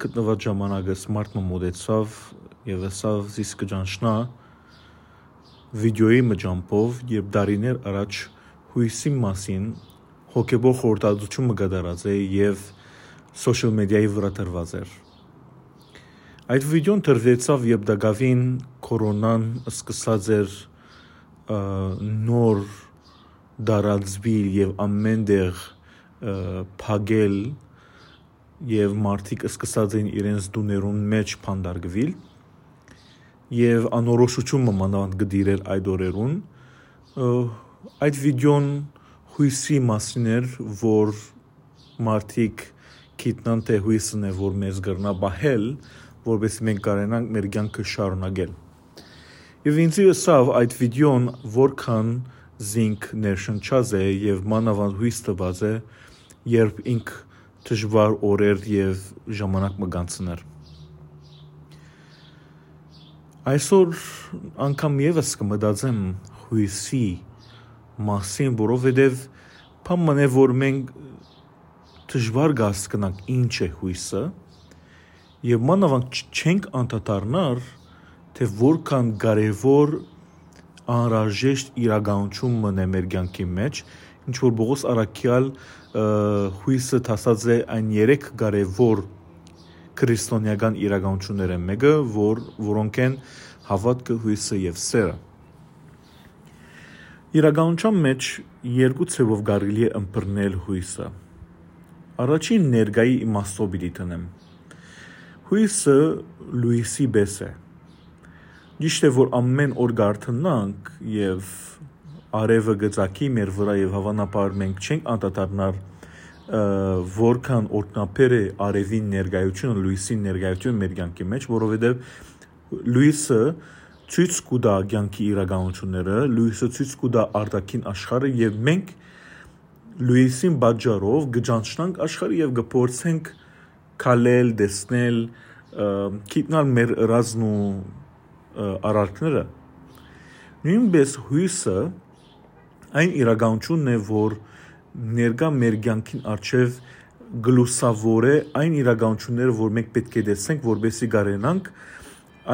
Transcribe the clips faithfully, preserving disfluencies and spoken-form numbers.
Գտնուած ժամանակս մարդ մը մօտեցաւ եւ ըսաւ. «Զիս կը ճանչնայ վիդէոյի մը ճամբով, երբ տարիներ առաջ յոյսի մասին հոգեբոր խորհրդածութիւն մը կատարած է եւ սոցիալ մեդիայի վրայ դրուած էր»։ Այդ վիդէոն դրուեցաւ, երբ տակաւին կորոնան սկսած էր, ը, նոր տարածուիլ եւ ամէն տեղ, ը, փակել, եւ մարդիկ սկսած էին իրենց տուներուն մէջ փանդարկուիլ, եւ անորոշութիւն մը մանաւանդ կը տիրէր այդ օրերուն։ Ը, այդ վիդէոն յոյսի մասին էր, որ մարդիկ գիտնան, թէ յոյսն է, որ մեզ կրնայ պահել, որպեսզի մենք կարենանք մեր կեանքը շարունակել։ Եւ ինձի ըսաւ, այդ վիդէոն որքան զինք ներշնչած է եւ մանաւանդ յոյս տուած է, երբ ինք դժուար օրեր եւ ժամանակ մը կանցնէր։ Այսօր անգամ եւս կը մտածեմ յոյսի մասին, որովհետեւ բան մնէ, որ մենք դժուար կը հասկնանք ինչ է յոյսը, եւ մանաւանդ չ-, չենք անդադարնար, թէ որքան կարեւոր անհրաժեշտ իրականութիւն մնէ մեր կեանքի մէջ, ինչ որ Պողոս առաքեալ, ը, յոյսը դասած է այն երեք կարեւոր քրիստոնեական իրականութիւններէն մէկը, որ, որոնք են հաւատքը, յոյսը եւ սերը։ Իրականության մէջ երկու ձեւով կարելի է ըմբռնել յոյսը։ Առաջին ներկայի իմաստով պիտի դնեմ։ Յոյսը լոյսի պէս է։ Ճիշդ է, որ ամէն օր կ'արթնանք եւ արեւը կը ծագի մեր վրայ եւ հաւանաբար մենք չենք անդադարնար, ը, որքան օրհնաբեր է արեւին ներկայությունը, լոյսին ներկայությունը մեր կեանքի մէջ, որովհետեւ լոյսը ցոյց կու տայ կեանքի իրականութիւնները, լոյսը ցոյց կու տայ արտաքին աշխարհը եւ մենք լոյսին պատճառով կը ճանչնանք աշխարհը եւ կը փորձենք քալել, տեսնել, ը, գիտնալ մեր ըրածն ու, ը, արարքները։ Նոյնպէս յոյսը այն իրականութիւնն է, որ ներկայ մեր կեանքին առջեւ կը լուսաւորէ այն իրականութիւնները, որ մենք պէտք է տեսնենք, որպեսզի կարենանք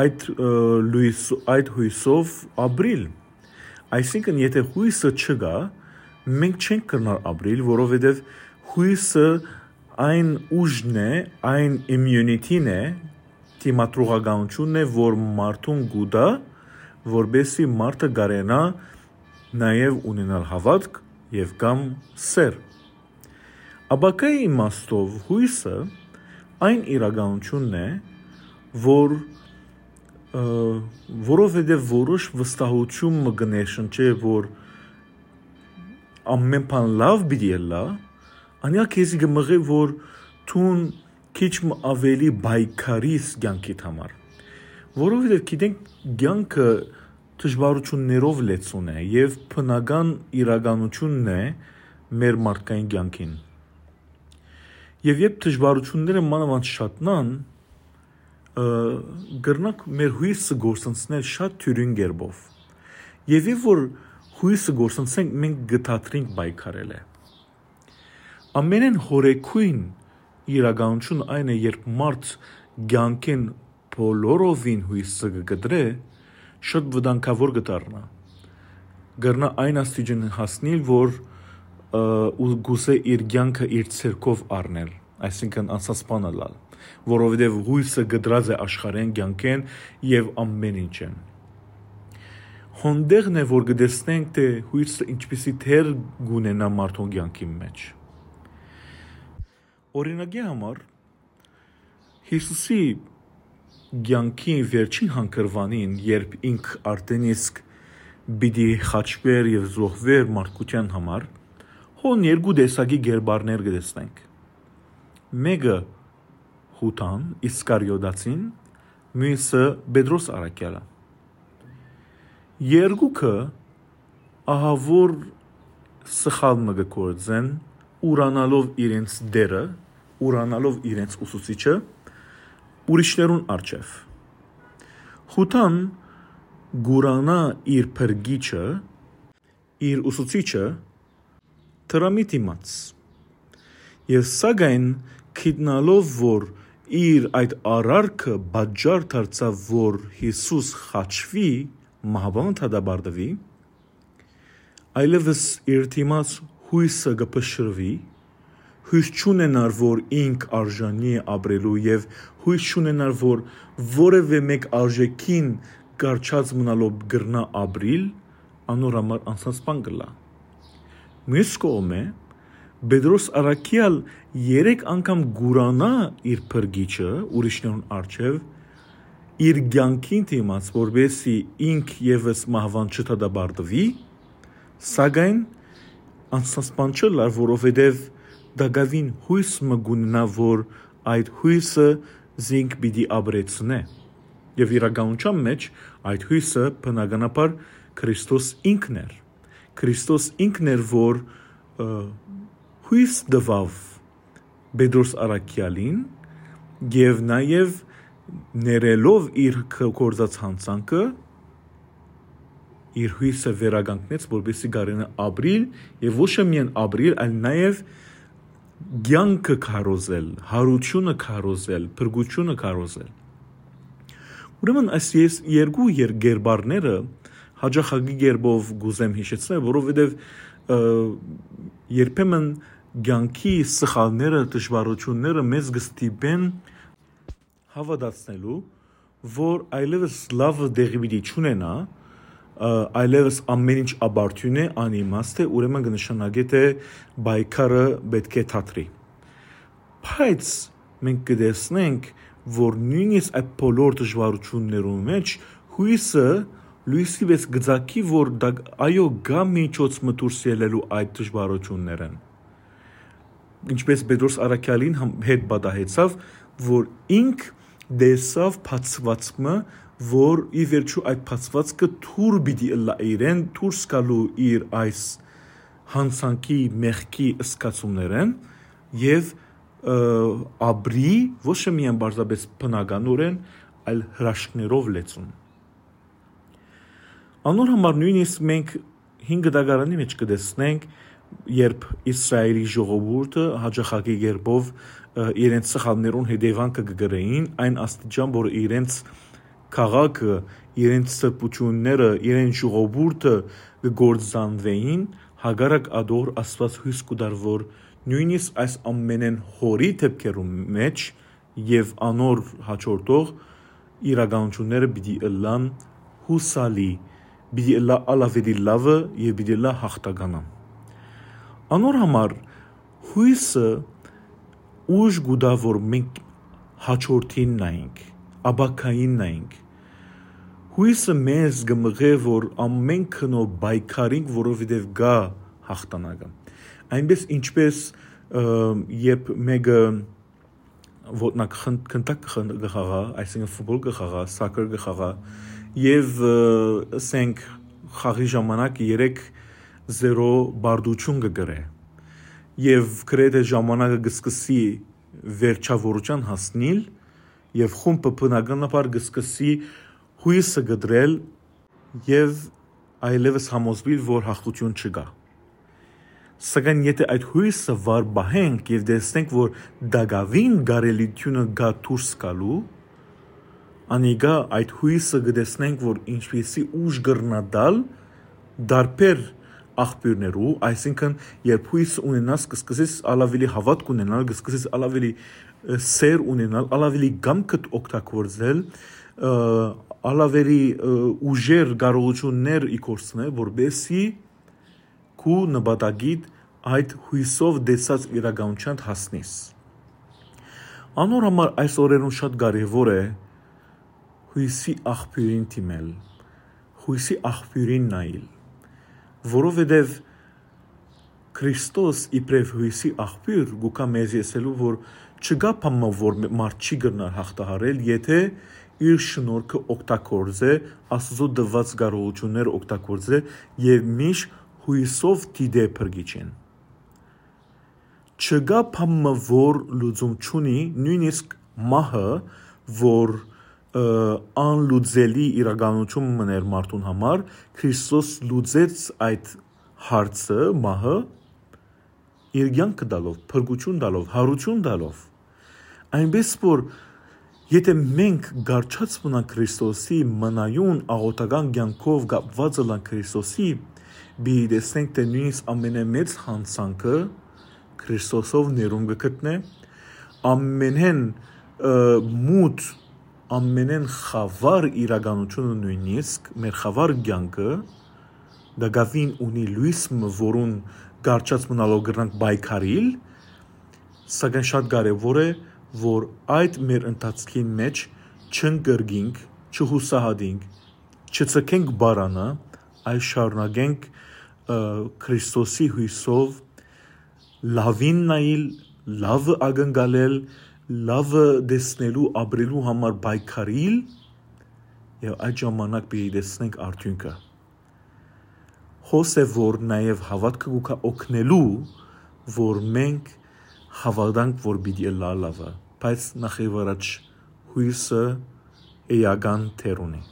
այդ, ը, լոյս-, այդ յոյսով ապրիլ։ Այսինքն, եթէ յոյսը չկայ, մենք չենք կրնար ապրիլ, որովհետեւ յոյսը այն ուժն է, այն immunity-ն է, դիմադրողականութիւնն է, որ մարդուն կու տայ, որպեսզի մարդը կարենայ նաեւ ունենալ հաւատք եւ կամ սեր։ Ապագայի իմաստով յոյսը այն իրականութիւնն է, որ, ը, որովհետեւ որոշ վստահութիւն մը կը ներշնչէ, որ ամէն բան լաւ պիտի ըլլայ, անիկա քեզի կը մղէ, որ դուն քիչ մը աւելի պայքարիս կեանքիդ համար։ Որովհետեւ գիտենք, կեանքը դժուարութիւններով լեցուն է եւ բնական իրականութիւնն է մեր մարդկային կեանքին։ Եւ երբ դժուարութիւնները մանաւանդ շատնան, ը, կրնանք մեր յոյսը գործընծնել շատ դիւրին կերպով։ Եւ երբ որ յոյսը գործընծենք, մենք կը դադրենք պայքարելը։ Ամենէն յորեգոյն իրականութիւնը այն է, երբ մարդ կեանքէն բոլորովին յոյսը կը կտրէ, շատ վտանգաւոր կը դառնայ։ Կրնայ այն աստիճան հասնիլ, որ, ը, ու գուցե իր կեանքը իր ձեռքով առնել, այսինքն անցած բան ըլլալ, որովհետեւ յոյսը կտրած է աշխարհէն, կեանքէն եւ ամէն ինչէն։ Հոն տեղն է, որ կը տեսնենք, թէ յոյսը ինչպիսի դեր կունենայ մարդուն կեանքին մէջ։ Օրինակի համար, Յիսուսի կեանքի վերջին հանգրուանին, երբ ինք արդեն իսկ պիտի խաչուէր եւ զոհուէր մարդկութեան համար, հոն երկու տեսակի կերպարներ կը տեսնենք։ Մէկը Յուդան Իսկարիոտացին, միւսը Պետրոս առաքեալը։ Երկուքը ահաւոր սխալ մը կը գործեն, ուրանալով իրենց դերը, ուրանալով իրենց ուսուցիչը, ուրիշներուն առջեւ։ Յուդան կուրանայ իր փրկիչը, իր ուսուցիչը, դրամի դիմաց։ Եւ սակայն գիտնալով, որ իր այդ արարքը պատճառ դարձաւ, որ Յիսուս խաչուի, մահուան դատապարտուի, այլեւս իր դիմաց յոյսը կը փշրուի, յոյս չունենար, որ ինք արժանի է ապրելու, եւ յոյս չունենար, որ որեւէ մէկ արժեքին կառչած մնալով կրնայ ապրիլ, անոր համար անցնած բան կ'ըլլայ։ Միւս կողմէ, Պետրոս առաքեալ երեք անգամ կ'ուրանայ իր փրկիչը ուրիշներուն առջեւ, իր կեանքին դիմաց, որպեսզի ինք եւս մահուան չդատապարտուի, սակայն անցնած բան չ'ըլլար, որովհետեւ տակաւին յոյս մը կ'ունենայ, որ այդ յոյսը զինք պիտի ապրեցնէ։ Եւ իրականութեան մէջ այդ յոյսը բնականաբար Քրիստոս ինքն էր։ Քրիստոս ինքն էր, որ, ը, յոյս տուաւ Պետրոս առաքեալին եւ նաեւ ներելով իր կ-, գործած յանցանքը, իր յոյսը վերականգնեց, որպեսզի կարենայ ապրիլ, եւ ոչ միայն ապրիլ, այլ նաեւ կեանքը քարոզել, յարութիւնը քարոզել, փրկութիւնը քարոզել։ Ուրեմն այս ես երկու եր-, կերպարները հաճախակի կերպով կ'ուզեմ յիշեցնել, որովհետեւ, ը, երբեմն կեանքի սխալները, դժուարութիւնները մեզ կը ստիպեն հաւատացնելու, որ այլեւս լավը տեղի պիտի չունենայ, ը, այլեւս ամեն ինչ ապարդիւն է, անիմաստ է, ուրեմն կը նշանակէ, թէ պայքարը պէտք է դադրի։ Բայց մենք կը տեսնենք, որ նոյնիսկ այդ բոլոր դժուարութիւններուն մէջ յոյսը լոյսի պէս կը ծագի, որ դա, այո, կայ միջոց մը դուրս ելլելու այդ դժուարութիւններէն։ Ինչպէս Պետրոս առաքեալին համ-, հետ պատահեցաւ, որ ինք տեսաւ բացուածք մը, որ ի վերջոյ այդ բացուածքը դուր պիտի ըլլայ իրեն, դուրս գալու իր այս յանցանքի մեղքի զգացումներէն եւ, ը, ապրի ոչ միայն պարզապէս բնականօրէն, այլ հրաշքներով լեցուն։ Անոր համար նոյնիսկ մենք հին կտակարանի մէջ կը տեսնենք, երբ Իսրայէլի ժողովուրդը հաճախակի կերպով, ը, իրենց սխալներուն հետեւանքը կը կրէին, այն աստիճան, որ իրենց քաղաքը, իրենց սրբութիւնները, իրենց ժողովուրդը կը կործանուէին, հակառակ ատոր Աստուած յոյս կու տար, որ նոյնիսկ այս ամենէն յոռի դէպքերուն մէջ եւ անոր յաջորդող իրականութիւնները պիտի ըլլան յուսալի, պիտի ըլլայ ալ աւելի լաւը եւ պիտի ըլլայ յաղթականան։ Անոր համար յոյսը ուժ կու տայ, որ մենք յաջորդին նայենք, ապագային նայենք։ Յոյսը մեզ կը մղէ, որ ամէն գնով պայքարինք, որովհետեւ կայ յաղթանակը։ Այնպէս ինչպէս, ը, երբ մէկը ոտնակը խն-, քնտակ կը խն-, կը խաղայ, այսինքն ֆուտբոլ կը խաղայ, սոքեր կը խաղայ, եւ, ը, ասենք, խաղի ժամանակ երեք զերո պարտութիւն կը կրէ, եւ գրեթէ ժամանակը կը սկսի վերջաւորութեան հասնիլ, եւ խումբը բնականաբար կը սկսի յոյսը կտրել եւ այլեւս համոզուիլ, որ յաղթութիւն չկայ։ Սակայն եթէ այդ յոյսը վառ պահենք եւ տեսնենք, որ տակաւին կարելիութիւնը կայ դուրս գալու, անիկա այդ յոյսը կը տեսնենք, որ ինչպեսի ուժ կրնայ տալ տարբեր աղբիւրներու, այսինքն երբ յոյս ունենաս, կը սկսես ալ աւելի հաւատք ունենալ, կը սկսես ալ աւելի, ը, սեր ունենալ, ալ աւելի կամքդ օգտագործել, ը, ալ աւելի, ը, ուժեր, կարողութիւններ ի գործ դնել, որպեսզի քու նպատակիդ այդ յոյսով տեսած իրականութեան հասնես։ Անոր համար այս օրերուն շատ կարեւոր է յոյսի աղբիւրին դիմել, յոյսի աղբիւրին նայել, որովհետեւ Քրիստոս իբրեւ յոյսի աղբիւր գուկա մեզի ասելու, որ չկայ բան մը, որ մարդ չի կրնար հաղթահարել, եթէ իր շնորհքը օգտագործէ, Աստուծոյ տուած կարողութիւնները օգտագործէ եւ միշտ յոյսով դիտէ փրկիչին։ Չկայ բան մը, որ լուծում չունի, նոյնիսկ մահը, որ, ը, անլուծելի իրականութիւն մըն էր մարդուն համար, Քրիստոս լուծեց այդ հարցը, մահը, իր կեանքը տալով, փրկութիւն տալով, յարութիւն տալով։ Այնպէս որ, եթէ մենք կառչած մնանք Քրիստոսի, մնայուն աղօթական կեանքով կապուած ըլլանք Քրիստոսի, պիտի տեսնենք թէ նոյնիսկ ամենամեծ յանցանքը Քրիստոսով ներում կը գտնէ, ամենէն մութ, ամենէն խաւար իրականութիւնը, նոյնիսկ մեր խաւար կեանքը, տակաւին ունի լոյս մը, որուն կառչած մնալով կրնանք պայքարիլ, սակայն շատ կարեւոր է, որ այդ մեր ընթացքին մէջ չընկրկինք, չյուսահատինք, չձգենք պարանը, այլ շարունակենք Քրիստոսի յոյսով լաւին նայիլ, լաւը ակնկալել, լաւը տեսնելու, ապրելու համար պայքարիլ, եւ այդ ժամանակ պիտի տեսնենք արդիւնքը։ Հոս է, որ նաեւ հաւատքը կու օգնելու, որ մենք հաւատանք, որ պիտի ըլլայ լաւը, բայց նախ եւ առաջ յոյսը էական դեր ունի։